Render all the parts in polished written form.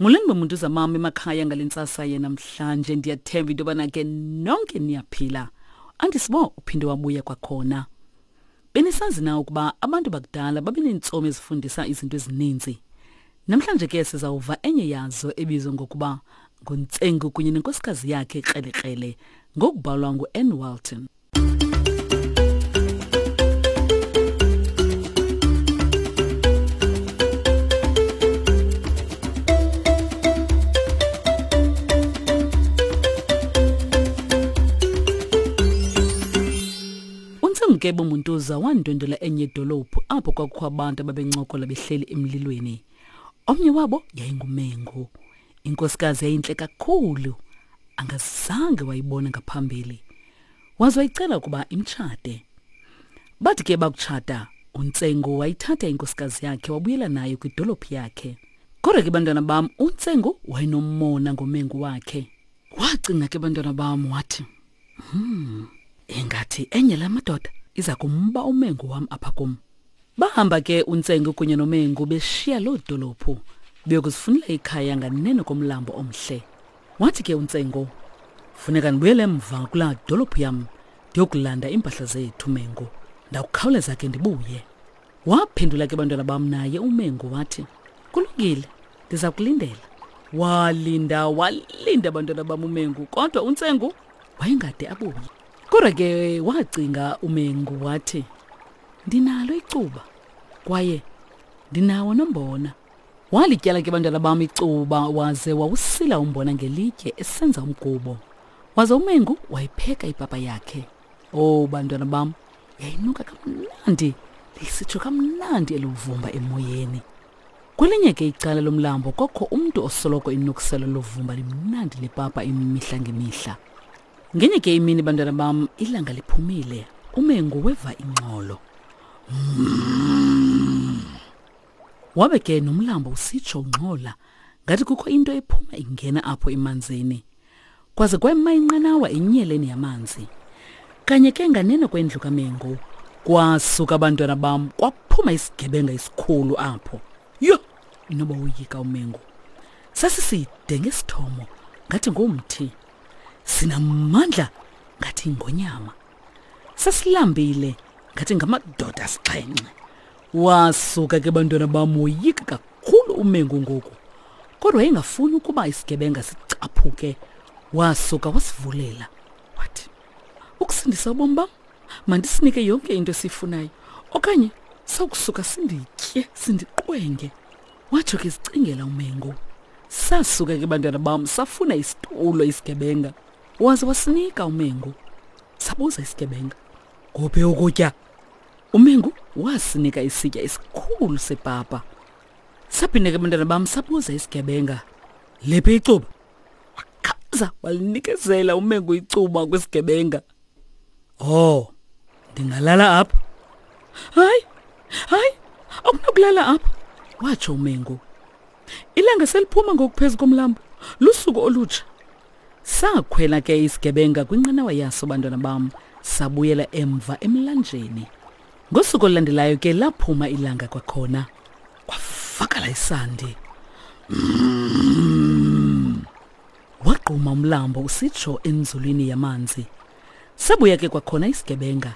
Molweni bomuntu zamam emakhaya ngale ntsasa yenamhlanje ndiyathemba into yobana ke nonke niyaphila. Andisibo uphinde wabuya kwakhona. Benisazi na ukuba abantu bakudala babeneentsomi ezifundisa izinto ezininzi? Namhlanje ke sizawuva enye yazo ebizwa ngokuba nguNtsengu kunye nenkosikazi yakhe Krelekrele ngokubhalwa ngu-Ann Walton. UNtsengukebe Muntuza wandwendwela enye idolophu apho kwakukho abantu ababencokola behleli emlilweni. Omnye wabo yayinguMengu. Inkosikazi yayintle kakhulu, angazange wayibona ngaphambili. Waze wayicela ukuba imtshate. Bathi ke bakutshata, uNtsengo wayithatha inkosikazi yakhe wabuyela nayo kwidolophu yakhe. Kodwa ke bantwana bam, uNtsengo wayenomona ngomengu wakhe. Wacinga ke bantwana bam wathi, Hmm, ingathi enye la madoda iza kumba umengu wam apha kum. Bahamba ke uNtsengo kunye noMengu beshiya loo dolophu beyokuzifunela ikhaya nganeno komlambo omhle. Wathi ke uNtsengo, funeka ndibuyele emva kulaa dolophu yam ndiyokulanda iimpahla zethu Mengu. Ndakukhawuleza ke ndibuye. Waphendula ke bantwana bam naye uMengu wathi, kulungile, ndiza kulindela. Walinda walinda bantwana bam uMengu kodwa uNtsengu wayengade abuye. Kodwa ke wacinga uMengu wathi, ndinalo icuba kwaye ndinawo nombona. Walityala ke bantwana bam icuba waze wawusila umbona ngelitye esenza umgubo. Waze uMengu wayipheka ipapa yakhe. Oh bantwana bam, yayinuka kamnandi, lisitsho kamnandi eluvumba emoyeni. Kwelinye ke icala lomlambo kwakho umntu osoloko inukisela lovumba limnandi lepapa imihla ngemihla. Ngenye ke imini bantwana bam ilanga liphumile, uMengu weva ingxolo. Mm. Wabe ke nomlambo usitsho ungxola ngathi kukho into ephuma ingena apho emanzini. Kwaze kwema inqanawa enyeleni yamanzi. Kanye ke nganeno kwendlu kaMengu kwasuka abantwana bam kwaphuma isigebenga esikhulu apho. Yho, inoba woyika uMengu. Sasiside ngesithomo ngathi ngumthi. Sinamandla ngathi ingonyama. Sasilambile ngathi ngamadoda asixhenxe. Wasuka ke bantwana bam woyika kakhulu uMengu ngoku. Kodwa wayengafuni ukuba isigebenga sicaphuke. Wasuka wasivulela wathi, ukusindisa ubomi bam mandisinike yonke into esiyifunayo okanye sawukusuka sinditye sindiqwenge. Watsho ke sicingela uMengu. Sasuka ke bantwana bam safuna isitulo isigebenga. Waze wasinika uMengu. Sabuza isigebenga, kuphi ukutya? Umengu wasinika isitya esikhulu sepapa. Saphinde ke bantwana bam sabuza isigebenga, liphi icuba? Wakhaza walinikezela uMengu icuba kwisigebenga. Oh, ndingalala apha? Hayi, hayi, akunakulala apha, watsho uMengu. Ilanga seliphuma ngokuphezu komlambo, lusuku olutsha. Sakhwela ke isigebenga kwinqanawa yaso bantwana bam, sabuyela emva emlanjeni. Ngosuku olulandelayo ke laphuma ilanga kwakhona. Kwavakala isandi. Mm. Wagquma umlambo usitsho enzulwini yamanzi. Sabuya ke kwakhona isigebenga.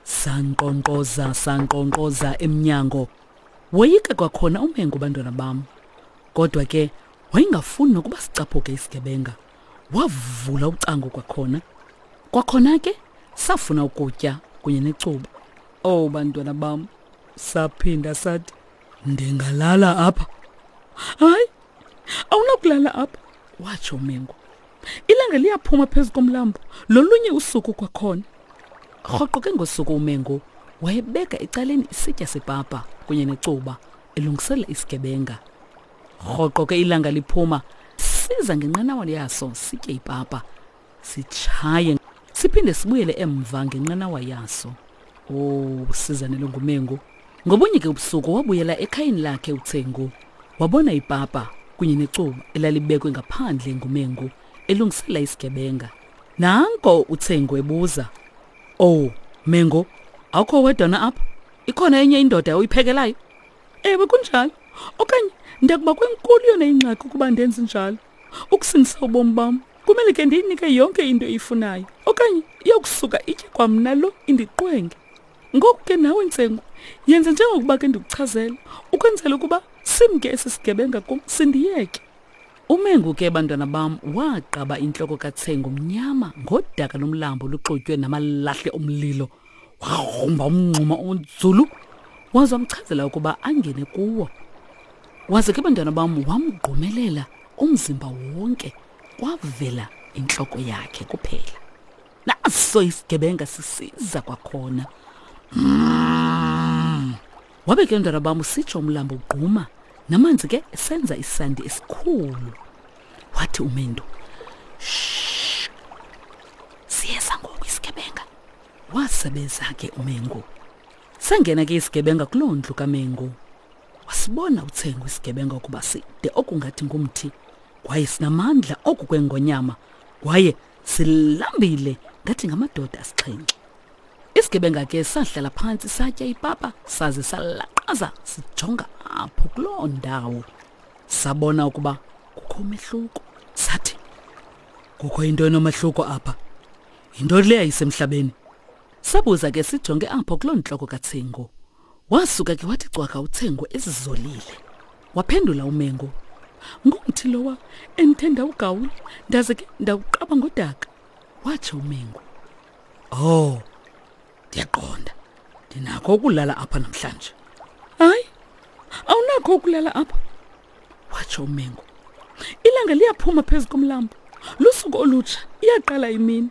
Sankqonkqoza, sankqonkqoza emnyango. Woyika kwakhona uMengu bantwana bam. Kodwa ke wayengafuni nokuba sicaphuke isigebenga. Wavula ucango kwakhona. Kwakhona ke safuna ukutya kunye necuba. Oh bantwana bam, saphinda sathi ndingalala apha. Hayi, awunakulala apha, watsho uMengu. Ilanga liyaphuma phezu komlambo lolunye usuku kwakhona. Rhoqo ke ngosuku uMengu wayebeka ecaleni isitya sepapa kunye necuba elungiselela isigebenga. Rhoqo ke ilanga liphuma siza ngenqanawa yaso sitye ipapa sitshaye siphinde sibuyele emva ngenqanawa yaso. Oh, sizanele nguMengu. Ngobunye ke ubusuku wabuyela ekhayeni lakhe uThengu. Wabona ipapa kunye necuba elalibekwe ngaphandle nguMengu elungisela isigebenga. Nanko uThengu ebuza, "Oh, Mengu, awukho wedwa na apha? Ikhona enye indoda oyiphekelayo?" Ewe kunjalo. Okanye ndiyakuba kwenkulu yona ingxaki ukuba ndenze njalo. Ukusindisa ubomi bam, kumele ke ndiyinike yonke into eyifunayo. Okanye iyokusuka itye kwamna lo indiqwenge. Ngoku ke nawe Ntsengu, yenze njengokuba ke ndikuchazela, ukwenzela ukuba simke esi sigebenga kum sindiyeke. Umengu ke bantwana bam waqaba intloko kaTsengu mnyama ngodaka lomlambo oluxutywe namalahle omlilo. Wagrumba umngxuma onzulu waze wamchazela ukuba angene kuwo. Waze ke bantwana bam wamgqumelela umzimba wonke kwavela intloko yakhe kuphela. Naso isigebenga sisiza kwakhona. Mm. Wabe ke mntwana bam usitsho umlambo ugquma namanzi ke esenza isandi esikhulu. Wathi uMendu, "Shh. Siyeza ngoku isigebenga." Wasebeza ke uMengu. Sangena ke isigebenga kuloo ndlu kaMengu. Wasibona uThengu isigebenga ukuba side okungathi ngumthi kwaye sinamandla oku kwengonyama kwaye silambile ngathi ngamadoda asixhenxe. Isigebenga ke sahlala phantsi satya ipapa saze salaqaza sijonga apho kuloo ndawo. Sabona ukuba kukho umehluko. Sathi, kukho into enomehluko apha. Yintoni le ayisemhlabeni? Sabuza ke sijonge apho kuloo ntloko kaTsengo. Wasuka ke wathi cwaka uTsengo ezizolile. Waphendula uMengo, Ngumthi lowa endithe ndawugawula ndaze ke ndawuqaba ngodaka. Watsho uMengo. Oh, ndiyaqonda. Ndinakho ukulala apha namhlanje. Hayi, awunakho ukulala apha. Watsho uMengo. Ilanga liyaphuma phezu komlambo. Lusuku olutsha, iyaqala imini.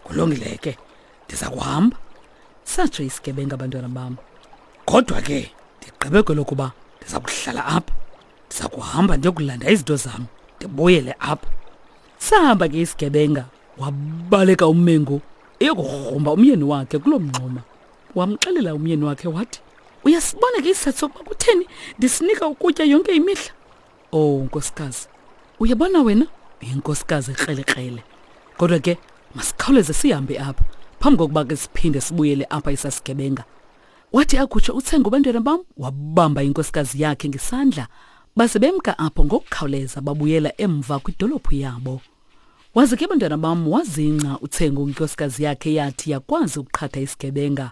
Kulungile ke. Ndiza kuhamba. Satsho isigebenga abantwana bam. Kodwa ke ndigqibe kwelokuba ndiza kuhlala apha. Ndiza kuhamba ndiyokulanda izinto zam, ndibuyele apha. Sahamba ke isigebenga, wabaleka uMengu eyokugrumba umyeni wakhe kuloo mngxuma. Wamxelela umyeni wakhe wathi, Uyasibona ke isizathu sokuba kutheni ndisinika ukutya yonke imihla? Oh nkosikazi, uyabona wena uyinkosikazi ekrelekrele. Kodwa ke masikhawuleze sihambe apha phambi kokuba ke siphinde sibuyele apha isasigebenga. Wathi akutsho uTsengo bantwana bam wabamba inkosikazi yakhe ngesandla baze bemka apho ngokukhawuleza babuyela emva kwidolophu yabo. Waze ke bantwana bam wazingca uTsengo ngenkosikazi yakhe yathi yakwazi ukuqhatha isigebenga.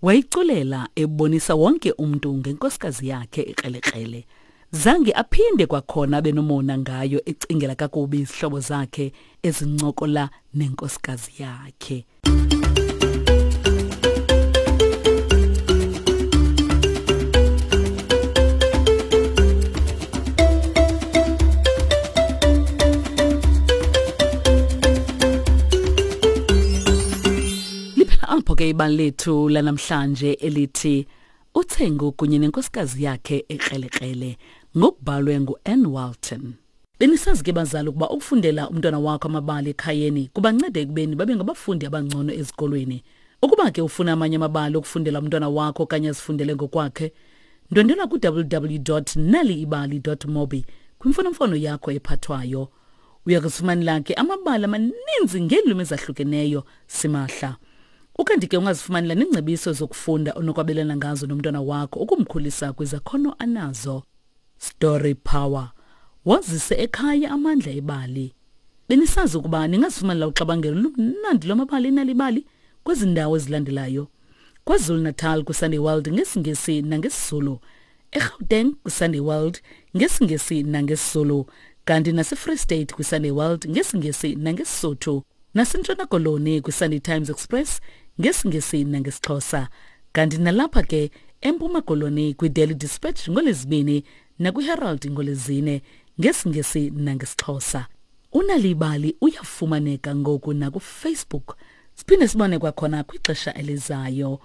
Wayiculela ebonisa wonke umntu ngenkosikazi yakhe ekrelekrele. Zange aphinde kwakhona abe nomona ngayo ecingela kakubi izihlobo zakhe ezincokola nenkosikazi yakhe. Liphela apho ke ibali lethu lanamhlanje elithi uThengu kunye nenkosikazi yakhe ekrelekrele ngokubhalwe ngu-Ann Walton. Benisazi ke bazali ukuba ukufundela umntwana wakho amabali ekhayeni kubanceda ekubeni babe ngabafundi abangcono ezikolweni. Ukuba ke ufuna amanye amabali okufundela umntwana wakho okanye azifundele ngokwakhe, ndwendwela ku-www.naliibali.mobi kwimfonomfono yakho ephathwayo. Uya kuzifumanela ke amabali amaninzi ngeelwimi ezahlukeneyo simahla. Ukanti ke ungazifumanela neengcebiso zokufunda onokwabelana ngazo nomntwana wakho ukumkhulisa kwizakhono anazo. Story Power. Wazise ekhaya amandla ebali. Benisazi ukuba ningazifumanela uxabangelo lumnandi lwamabali enalibali kwezi ndawo ezilandelayo. KwaZulu-Natal kwiSunday World ngesiNgesi nangesiZulu. eGauteng kwiSunday World ngesiNgesi nangesiZulu. Kanti naseFree State kwiSunday World ngesiNgesi nangeSisotho. NaseNtshona Koloni kwiSunday Times Express ngesiNgesi nangesiXhosa. Kanti nalapha ke eMpuma Koloni kwiDaily Dispatch ngoLwezibini nakwiHerald ngoLwezine ngesiNgesi nangesiXhosa. Unalibali uyafumaneka ngoku nakuFacebook. Siphinde sibone kwakhona kwixesha elizayo.